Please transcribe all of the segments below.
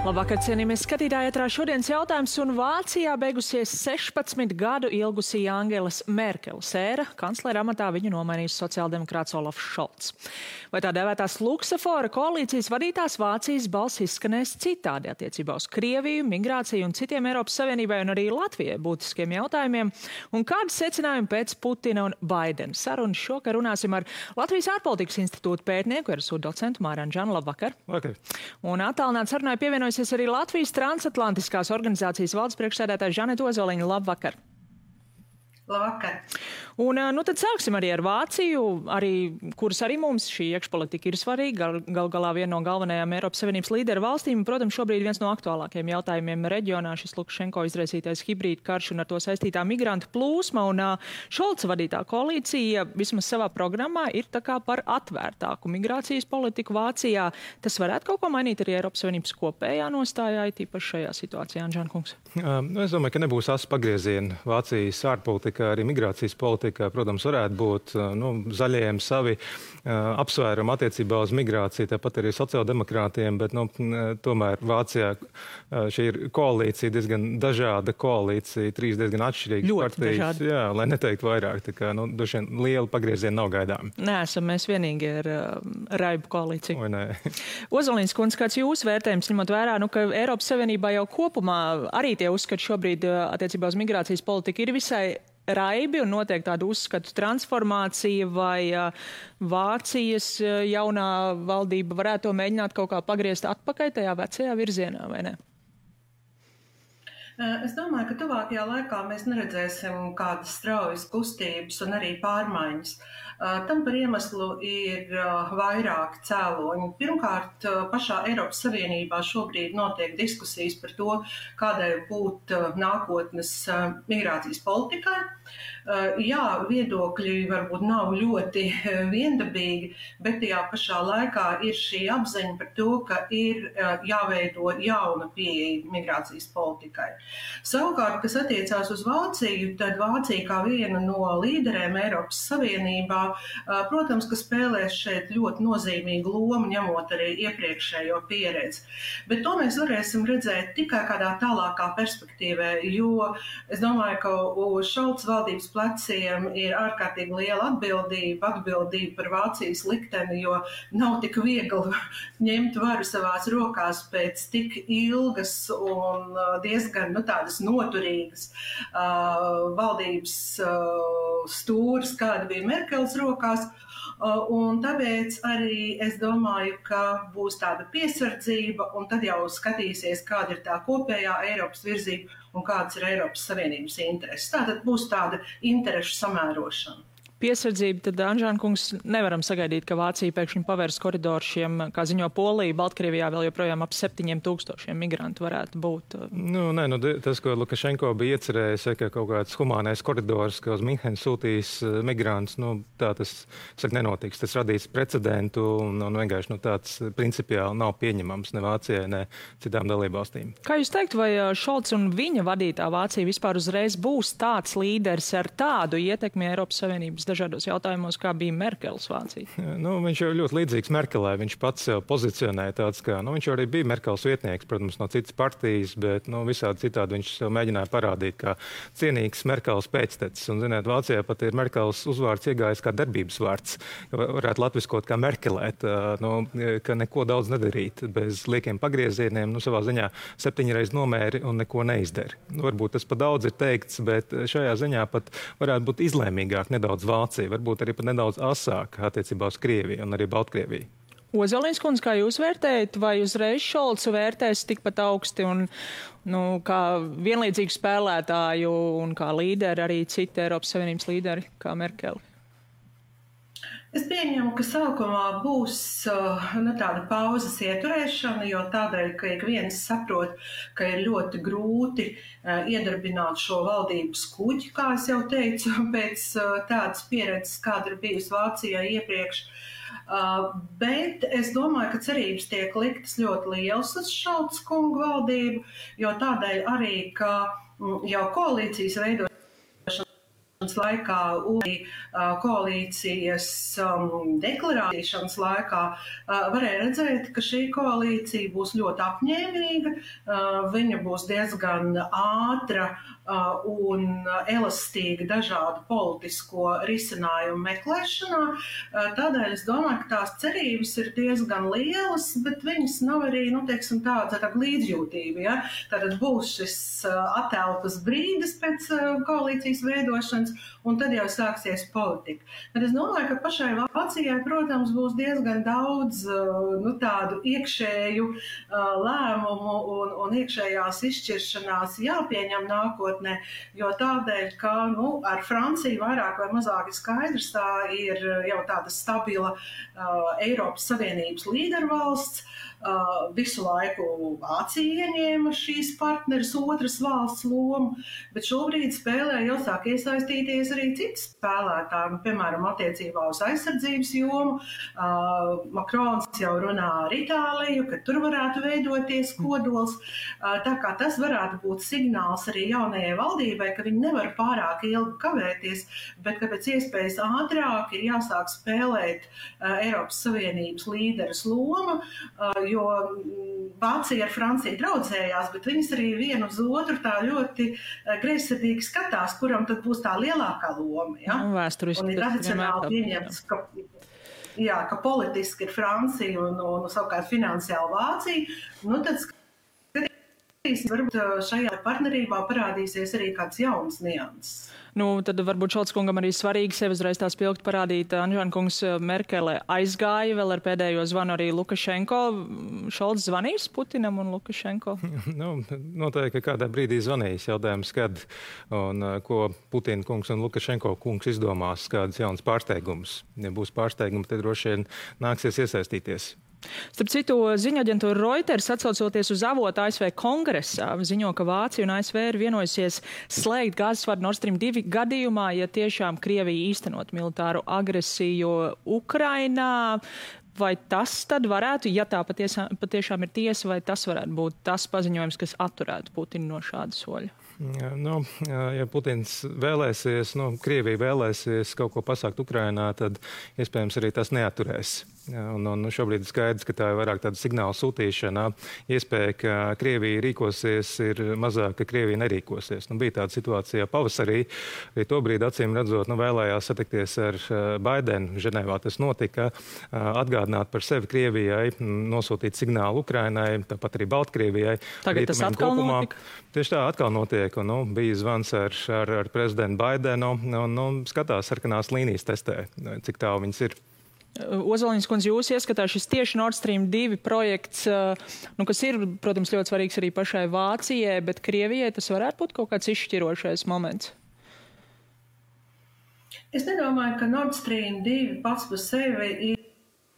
Labvakar, cienījamies skatītāji, ētrā šodienas jautājums, un Vācijā beigusies 16 gadu ilgusī Angelas Merkeles ēra. Kanclera amatā viņu nomainīs sociāldemokrāts Olafs Šolts. Vai tā dēvētās luksafora koalīcijas vadītās Vācijas balss izskanēs citādi attiecībā uz Krieviju, migrāciju un citiem Eiropas Savienībai un arī Latvijai būtiskiem jautājumiem? Un kādi secinājumi pēc Putina un Baidena sarunas? Šokar runāsim ar Latvijas ārpolitikas institūta pētnieku, RSU docentu Māri Anžanu. Labvakar. Vakar. Un attālināt sarunai pievienojusies arī Latvijas transatlantiskās organizācijas valdes priekšsēdētāja Žaneta Ozoliņa. Labvakar! Labvakar! Un tad sāksim arī ar Vāciju, kuras arī mums šī iekšpolitika ir svarīga, gal galā viena no galvenajām Eiropas Savienības līderu valstīm. Protams, šobrīd viens no aktuālākajiem jautājumiem reģionā šis Lukašenko izraisītais hibrīda karš un ar to saistītā migrantu plūsma. Un Šolca vadītā koalīcija vismaz savā programmā ir tā kā par atvērtāku migrācijas politiku Vācijā. Tas varētu kaut ko mainīt arī Eiropas Savienības kopējā nostājā, tīpaši šajā situācijā, Anžan kungs? Es domāju, ka nebūs asu pagrieziena Vācijas ārpolitikā, arī migrācijas politikā. Protams, varētu būt zaļajiem savi apsvērumi attiecībā uz migrāciju, tāpat arī sociāldemokrātiem, bet tomēr Vācijā šī ir koalīcija, diezgan dažāda koalīcija, trīs diezgan atšķirīgas partijas. Jā, lai neteikt vairāk, tā kā droši vien liela pagrieziena nav gaidām. Neesam mēs vienīgi ar raibu koalīciju. Vai nē? Ozoliņas kundze, kāds jūsu vērtējums, ņemot vērā, ka Eiropas Savienībā jau kopumā arī tie uzskati šobrīd attiecībā uz migrācijas politiku ir visai raibi un notiek tāda uzskatu transformācija, vai Vācijas jaunā valdība varētu to mēģināt kaut kā pagriezt atpakaļ tajā vecajā virzienā, vai ne? Es domāju, ka tuvākajā laikā mēs neredzēsim kādas straujas kustības un arī pārmaiņas. Tam par iemeslu ir vairāki cēloņi. Pirmkārt, pašā Eiropas Savienībā šobrīd notiek diskusijas par to, kādai būt nākotnes migrācijas politikai. Jā, viedokļi varbūt nav ļoti viendabīgi, bet tajā pašā laikā ir šī apziņa par to, ka ir jāveido jauna pieeja migrācijas politikai. Savukārt, kas attiecās uz Vāciju, tad Vācija kā viena no līderēm Eiropas Savienībā, protams, ka spēlēs šeit ļoti nozīmīgu lomu, ņemot arī iepriekšējo pieredzi. Bet to mēs varēsim redzēt tikai kādā tālākā perspektīvā, jo es domāju, ka uz Šolca valdības pleciem ir ārkārtīgi liela atbildība par Vācijas likteni, jo nav tik viegli ņemt varu savās rokās pēc tik ilgas un diezgan tādas noturīgas valdības stūras, kāda bija Merkeles rokās. Un tāpēc arī es domāju, ka būs tāda piesardzība, un tad jau skatīsies, kāda ir tā kopējā Eiropas virzība un kādas ir Eiropas Savienības intereses. Tātad būs tāda interešu samērošana. Piesardzība, tad, Anžāna kungs, nevaram sagaidīt, ka Vācija pēkšņi pavērs koridoru šiem, kā ziņo Polija, Baltkrievijā vēl joprojām ap 7000 migrantu varētu būt. Tas, ko Lukašenko bija iecerējis, ka kaut kāds humānais koridors, ka uz Minhenu sūtīs migrantus, tā tas nenotiks. Tas radīs precedentu un vienkārši tāds principiāli nav pieņemams ne Vācijai, ne citām dalībvalstīm. Kā jūs teikt, vai Šolts un viņa vadītā Vācija vispār uzreiz būs tāds līderis ar tādu ietekmi Eiropas Savienības dažādos jautājumos, kā bija Merkeles Vācija? Viņš jau ļoti līdzīgs Merkelē. Viņš pats sev pozicionēja tāds, ka viņš jau arī bija Merkeles vietnieks, protams, no citas partijas, bet visādi citādi viņš sev mēģināja parādīt kā cienīgs Merkeles pēctecis. Un, ziniet, Vācijā pat ir Merkeles uzvārds iegājis kā darbības vārds. Varētu latviskot kā merkelēt, ka neko daudz nedarīt bez liekiem pagriezieniem, savā ziņā 7 reiz nomēri un neko neizdara. Varbūt tas pat daudz ir teikts, bet šajā ziņā pat varētu būt izlēmīgāk nedaudz Vācija, varbūt arī pat nedaudz asāk attiecībā uz Krieviju un arī Baltkrieviju. Ozoliņas kundze, kā jūs vērtējat, vai uzreiz Šolcu vērtēs tikpat augsti un kā vienlīdzīgu spēlētāju un kā līderi arī citi Eiropas Savienības līderi kā Merkeli? Es pieņemu, ka sākumā būs tāda pauzes ieturēšana, jo tādēļ, ka ik viens saprot, ka ir ļoti grūti iedarbināt šo valdības kuģi, kā es jau teicu, pēc tādas pieredzes, kāda ir bijusi Vācijā iepriekš. Bet es domāju, ka cerības tiek liktas ļoti lielas uz Šolca kungu valdību, jo tādēļ arī, ka jau koalīcijas veidošana laikā un koalīcijas deklarēšanas laikā varēja redzēt, ka šī koalīcija būs ļoti apņēmīga, viņa būs diezgan ātra un elastīga dažādu politisko risinājumu meklēšanā. Tādēļ es domāju, ka tās cerības ir diezgan lielas, bet viņas nav arī, tāda līdzjūtība. Ja? Tātad būs šis atelpas brīdis pēc koalīcijas veidošanas, un tad jau sāksies politika. Bet es domāju, ka pašai Vācijai, protams, būs diezgan daudz tādu iekšēju lēmumu un iekšējās izšķiršanās jāpieņem nākotnē, jo tādēļ, ka ar Franciju vairāk vai mazāk ir skaidrs, tā ir jau tāda stabila Eiropas Savienības līdervalsts. Visu laiku Vācija ieņēma šīs partneres otras valsts lomu, bet šobrīd spēlē jau sāk iesaistīties arī citi spēlētāji, piemēram, attiecībā uz aizsardzības jomu. Makrons jau runā ar Itāliju, ka tur varētu veidoties kodols. Tā kā tas varētu būt signāls arī jaunajai valdībai, ka viņi nevar pārāk ilgi kavēties, bet ka pēc iespējas ātrāk ir jāsāk spēlēt Eiropas Savienības līderes loma, jo Vācija ar Franciju draudzējās, bet viņas arī vienu uz otru tā ļoti greizsirdīgi skatās, kuram tad būs tā lielākā loma. Ja? Un ir tradicionāli pieņemts, ka politiski ir Francija un savukārt finansiāli Vācija. Tad skatīsim, varbūt šajā partnerībā parādīsies arī kāds jauns nianses. Tad varbūt Šolts kungam arī svarīgi sevi uzreiz tā spilgti parādīt. Anžāna kungs, Merkele aizgāja vēl ar pēdējo zvanu arī Lukašenko. Šolts zvanīs Putinam un Lukašenko? Noteikti, ka kādā brīdī zvanīs, jautājums, kad un ko Putina kungs un Lukašenko kungs izdomās, kādas jaunas pārsteigumus. Ja būs pārsteigumi, tad droši vien nāksies iesaistīties. Starp citu, ziņu aģentūra Reuters, atsaucoties uz avotu ASV kongresā, ziņo, ka Vācija un ASV ir vienojusies slēgt gāzesvadu Nord Stream 2 gadījumā, ja tiešām Krievija īstenot militāru agresiju Ukrainā. Vai tas tad varētu, ja tā patiešām ir tiesa, vai tas varētu būt tas paziņojums, kas atturētu Putinu no šāda soļa? Ja Putins vēlēsies, Krievija vēlēsies kaut ko pasākt Ukrainā, tad iespējams arī tas neatturēs. Un šobrīd ir skaidrs, ka tā ir vairāk tāda signāla sūtīšana. Iespēja, ka Krievija rīkosies, ir mazāk, ka Krievija nerīkosies. Bija tāda situācija pavasarī, arī to brīdi acīm redzot, vēlējās satikties ar Baidenu. Ženēvā tas notika, atgādināt par sevi Krievijai, nosūtīt signālu Ukrainai, tāpat arī Baltkrievijai. Tagad tas atkal notika? Tieši tā atkal notiek. Bija zvans ar prezidentu Baidenu, skatās sarkanās līnijas testē, cik tālu viņas ir. Ozoliņas kundze, jūs ieskatā šis tieši Nord Stream 2 projekts, kas ir, protams, ļoti svarīgs arī pašai Vācijai, bet Krievijai tas varētu būt kaut kāds izšķirošais moments? Es nedomāju, ka Nord Stream 2 pats par sevi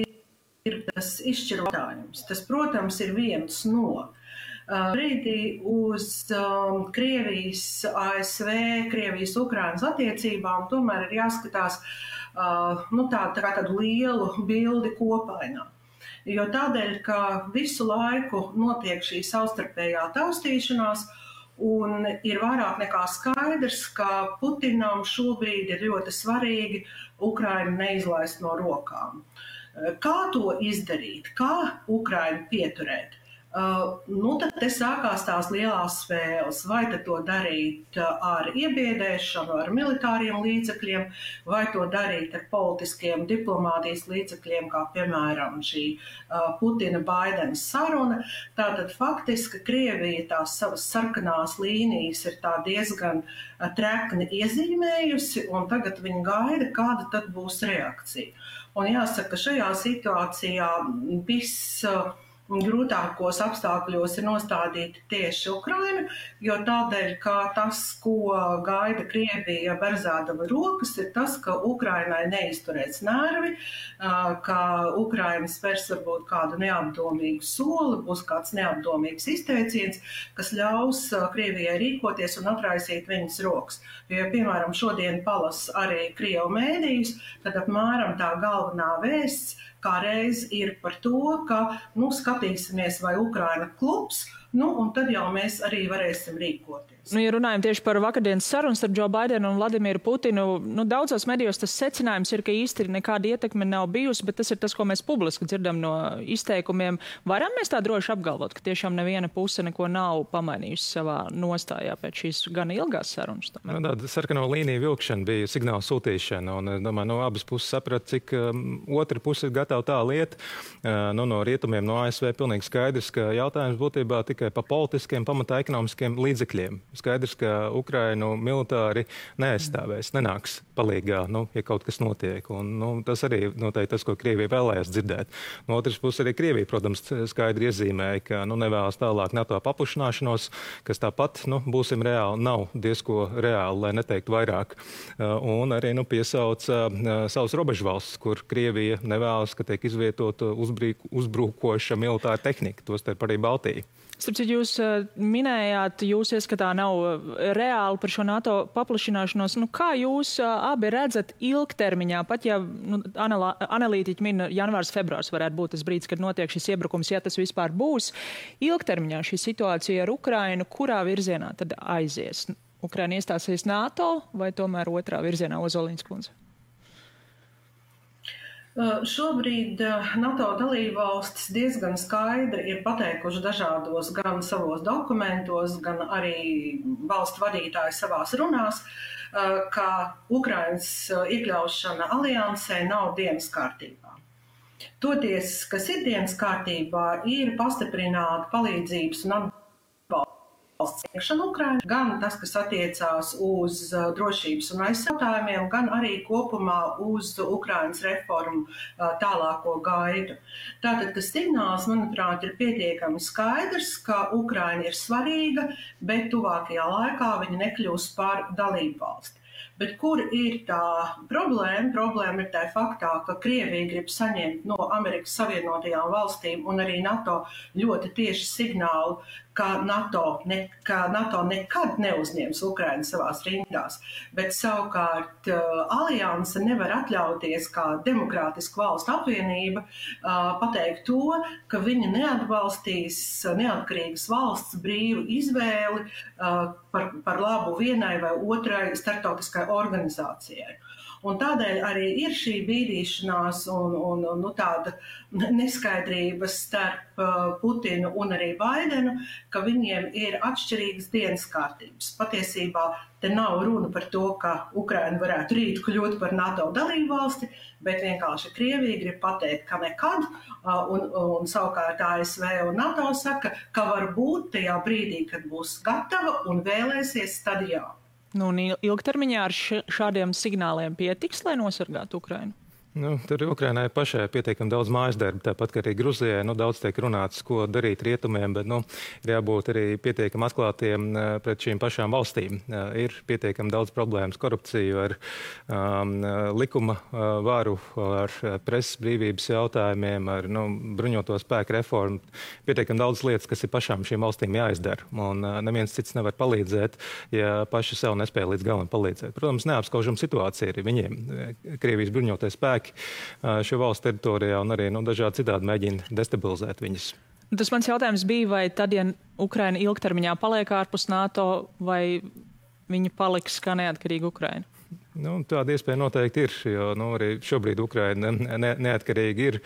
ir tas izšķirotājums. Tas, protams, ir viens no. Brīdī uz Krievijas, ASV, Krievijas, Ukrainas attiecībām tomēr ir jāskatās tādu lielu bildi kopainā. Jo tādēļ, ka visu laiku notiek šī savstarpējā taustīšanās un ir vairāk nekā skaidrs, ka Putinam šobrīd ir ļoti svarīgi Ukrainu neizlaist no rokām. Kā to izdarīt? Kā Ukrainu pieturēt? Tad te sākās tās lielās spēles. Vai tad to darīt ar iebiedēšanu, ar militāriem līdzekļiem, vai to darīt ar politiskiem diplomātijas līdzekļiem, kā piemēram šī Putina-Baidenas saruna. Tātad faktiski Krievija tās savas sarkanās līnijas ir tā diezgan trekni iezīmējusi, un tagad viņi gaida, kāda tad būs reakcija. Un jāsaka, ka šajā situācijā grūtākos apstākļos ir nostādīti tieši Ukraina, jo tādēļ, ka tas, ko gaida Krievija berzādama rokas, ir tas, ka Ukrainai neizturēs nervi, ka Ukraina spērs varbūt kādu neapdomīgu soli, būs kāds neapdomīgs izteiciens, kas ļaus Krievijai rīkoties un atraisīt viņas rokas. Jo, piemēram, šodien palas arī Krievu mēdījus, tad apmēram tā galvenā vēsts kā reiz ir par to, ka skatīsimies, vai Ukraina klubs, un tad jau mēs arī varēsim rīkoties. Ja runājam tieši par vakardienas sarunu starp Džo Baidenu un Vladimiru Putinu, daudzos medijos tas secinājums ir, ka īsti nekāda ietekme nav bijusi, bet tas ir tas, ko mēs publiski dzirdam no izteikumiem. Varam mēs tā droši apgalvot, ka tiešām neviena puse neko nav pamainījusi savā nostājā pēc šīs gan ilgās sarunas? Tāda sarkano līniju vilkšana bija signāla sūtīšana, un domāju, no abas puses saprat, cik otra puse ir gatava tā lieta. No rietumiem, no ASV pilnīgi skaidrs, ka jautājums būtībā tikai pa politiskiem, pamatā ekonomiskiem līdzekļiem. Skaidrs, ka Ukrainu militāri neaizstāvēs, nenāks palīgā, ja kaut kas notiek. Un, tas arī noteikti tas, ko Krievija vēlējās dzirdēt. No otras puses arī Krievija, protams, skaidri iezīmēja, ka nevēlas tālāk NATO paplašināšanos, kas tāpat, būsim reāli, nav diezko reāli, lai neteikt vairāk. Un arī piesauca savus robežvalstis, kur Krievija nevēlas, ka tiek izvietota uzbrukoša militāra tehnika, tostarp arī Baltija. Starp citu, jūs minējāt, jūs ieskatā nav reāli par šo NATO paplašināšanos. Kā jūs abi redzat ilgtermiņā, pat ja analītiķi min janvārs, februārs varētu būt tas brīdis, kad notiek šis iebrukums, ja tas vispār būs, ilgtermiņā šī situācija ar Ukrainu, kurā virzienā tad aizies? Ukraina iestāsies NATO vai tomēr otrā virzienā, Ozoliņas kundze? Šobrīd NATO dalībvalstis diezgan skaidri ir pateikuši dažādos gan savos dokumentos, gan arī valstu vadītāji savās runās, ka Ukrainas iekļaušana aliansē nav dienas kārtībā. Toties, kas ir dienas kārtībā, ir pastiprināt palīdzības un atbalstu sniegšanu Ukrainai, gan tas, kas attiecās uz drošības un aizsargājumiem, gan arī kopumā uz Ukrainas reformu tālāko gaidu. Tātad tas signāls, manuprāt, ir pietiekami skaidrs, ka Ukraina ir svarīga, bet tuvākajā laikā viņa nekļūs par dalību valsti. Bet kur ir tā problēma? Problēma ir tā faktā, ka Krievija grib saņemt no Amerikas Savienotajām valstīm un arī NATO ļoti tieši signālu, ka NATO nekad neuzņems Ukrainu savās rindās, bet savukārt alianse nevar atļauties kā demokrātiska valstu apvienība pateikt to, ka viņa neatbalstīs neatkarīgas valsts brīvu izvēli par labu vienai vai otrai starptautiskai organizācijai. Un tādēļ arī ir šī bīdīšanās un tāda neskaidrības starp Putinu un arī Baidenu, ka viņiem ir atšķirīgas dienas kārtības. Patiesībā te nav runa par to, ka Ukraina varētu rīt kļūt par NATO dalībvalsti, bet vienkārši Krievija grib pateikt, ka nekad, un savukārt ASV un NATO saka, ka varbūt tajā brīdī, kad būs gatava un vēlēsies, tad jā. Un ilgtermiņā ar šādiem signāliem pietiks, lai nosargātu Ukrainu? Tur Ukrainai pašai pietiekami daudz mājas darba, tāpat kā arī Gruzijai. Daudz tiek runāts, ko darīt rietumiem, bet ir jābūt arī pietiekami atklātiem pret šīm pašām valstīm. Ir pietiekami daudz problēmas, korupciju, ar likuma varu, ar presas brīvības jautājumiem, ar bruņoto spēku reformu. Pietiekami daudz lietas, kas ir pašām šīm valstīm jāizdara. Un neviens cits nevar palīdzēt, ja paši sev nespēja līdz galam palīdzēt. Protams, neapskaužama situācija arī viņiem. Krievijas bruņotie spēki šo valstu teritorijā un arī dažādi citādi mēģina destabilizēt viņas. Tas mans jautājums bija, vai tad, ja Ukraina ilgtermiņā paliek ārpus NATO, vai viņa paliks kā neatkarīga Ukraina? Tāda iespēja noteikti ir, jo arī šobrīd Ukraina neatkarīgi ir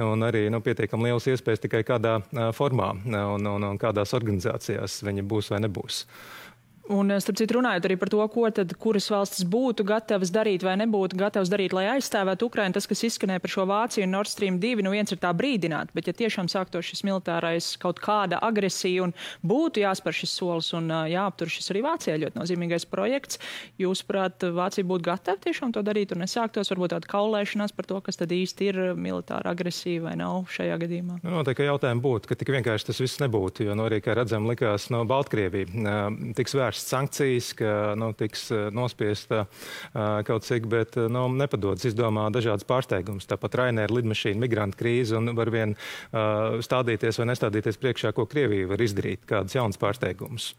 un arī pietiekami lielas iespējas tikai kādā formā un kādās organizācijās viņa būs vai nebūs. Un, starp citu, runājot arī par to, kuras valstis būtu gatavas darīt vai nebūtu gatavas darīt, lai aizstāvētu Ukrainu, tas, kas izskanēja par šo Vāciju un Nord Stream 2, viens ir tā brīdināt, bet ja tiešām sāktos šis militārais kaut kāda agresija un būtu jāspēr šis solis un jāaptur šis arī Vācijā ļoti nozīmīgais projekts, jūsuprāt, Vācija būtu gatava tiešām to darīt un nesāktos varbūt tāda kaulēšanās par to, kas tad īsti ir militāra agresija vai nav šajā gadījumā? Noteikti jautājumi būtu, ka tik vienkārši tas viss nebūtu, jo arī, kā redzam, likās Baltkrievija tiks vērsts sankcijas, ka tiks nospiesta kaut cik, bet nepadodas, izdomā dažādas pārsteigumus. Tāpat Ryanair lidmašīna, migrantu krīze un var vien stādīties vai nestādīties priekšā, ko Krievija var izdarīt, kādas jaunas pārsteigumus.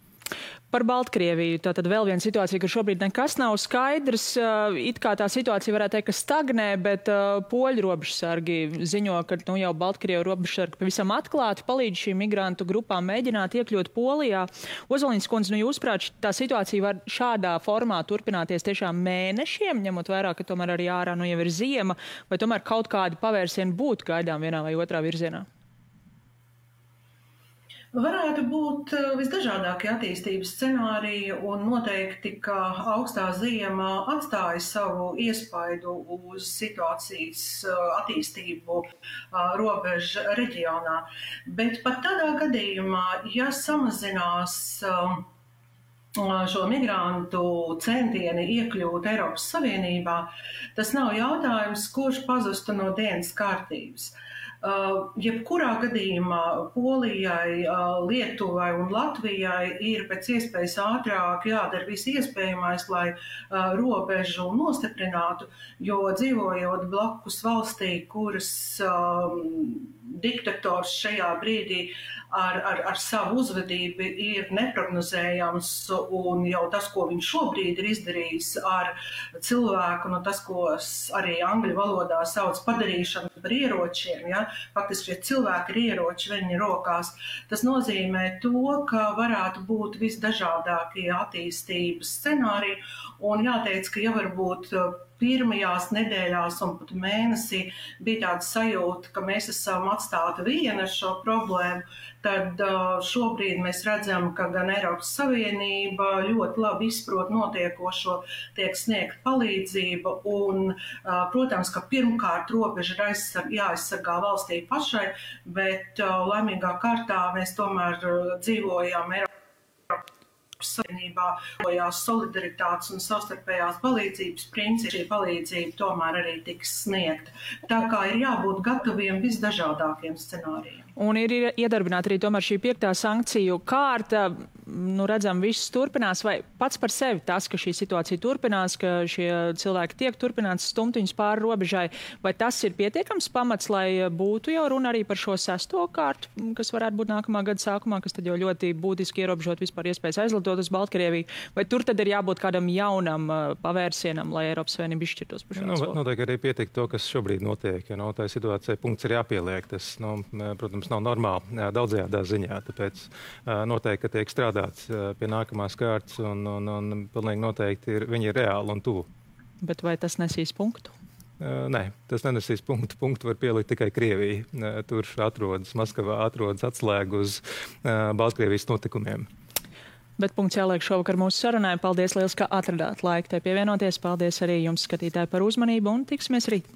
Par Baltkrieviju. Tātad vēl viena situācija, ka šobrīd nekas nav skaidrs. It kā tā situācija varētu teikt, ka stagnē, bet poļu robežsargi ziņo, ka jau Baltkrievu robežsargi pavisam atklāti palīdz šīm migrantu grupām mēģināt iekļūt Polijā. Ozoliņas kundze, jūsuprāt, tā situācija var šādā formā turpināties tiešām mēnešiem, ņemot vērā, ka tomēr arī ārā jau ir ziema, vai tomēr kaut kādi pavērsieni būtu gaidām vienā vai otrā virzienā? Varētu būt visdažādākie attīstības scenāriji, un noteikti, ka augstā ziema atstāja savu iespaidu uz situācijas attīstību robežu reģionā. Bet pat tādā gadījumā, ja samazinās šo migrantu centieni iekļūt Eiropas Savienībā, tas nav jautājums, kurš pazustu no dienas kārtības. Jebkurā gadījumā Polijai, Lietuvai un Latvijai ir pēc iespējas ātrāk jādara viss iespējamais, lai robežu nostiprinātu, jo dzīvojot blakus valstī, kuras diktators šajā brīdī ar savu uzvedību ir neprognozējams, un jau tas, ko viņš šobrīd ir izdarījis ar cilvēku, tas, ko arī angļu valodā sauc padarīšanu par ieročiem, ja, faktiski šie cilvēki ir ieroči viņa rokās, tas nozīmē to, ka varētu būt visdažādākie attīstības scenāriji, un jāteic, ka jau varbūt pirmajās nedēļās un pat mēnesī bija tāda sajūta, ka mēs esam atstāti vieni ar šo problēmu, tad šobrīd mēs redzam, ka gan Eiropas Savienība ļoti labi izprot notiekošo, tiek sniegt palīdzība un, protams, ka pirmkārt robeža ir jāaizsargā valstī pašai, bet laimīgā kārtā mēs tomēr dzīvojam Eiropas Savienībā, solidaritātes un savstarpējās palīdzības principi, šī palīdzība tomēr arī tiks sniegta. Tā kā ir jābūt gataviem visdažādākiem scenārijiem. Un ir iedarbināta arī tomēr šī 5. sankciju kārta. Redzam, viss turpinās, vai pats par sevi tas, ka šī situācija turpinās, ka šie cilvēki tiek turpināts stumt viņus pāri robežai, vai tas ir pietiekams pamats, lai būtu jau runa arī par šo 6. kārtu, kas varētu būt nākamā gada sākumā, kas tad jau ļoti būtiski ierobežot vispār iespējas aizlidot uz Baltkrieviju, vai tur tad ir jābūt kādam jaunam pavērsienam, lai Eiropas Savienība izšķirtos par šo soli? Noteikti arī pietiek to, kas šobrīd notiek, ja tā situācija punkts ir jāpieliek. Tas, protams, nav normāli daudzajādā ziņā, tāpēc noteikti, ka tiek strādāts pie nākamās kārtas un pilnīgi noteikti viņi ir reāli un tuvu. Bet vai tas nesīs punktu? Nē, tas nenesīs punktu. Punktu var pielikt tikai Krievija. Tur Maskavā atrodas atslēga uz Baltkrievijas notikumiem. Bet punkts jāliek šovakar mūsu sarunai. Paldies liels, ka atradāt laiku te pievienoties. Paldies arī jums, skatītāji, par uzmanību un tiksimies rīt.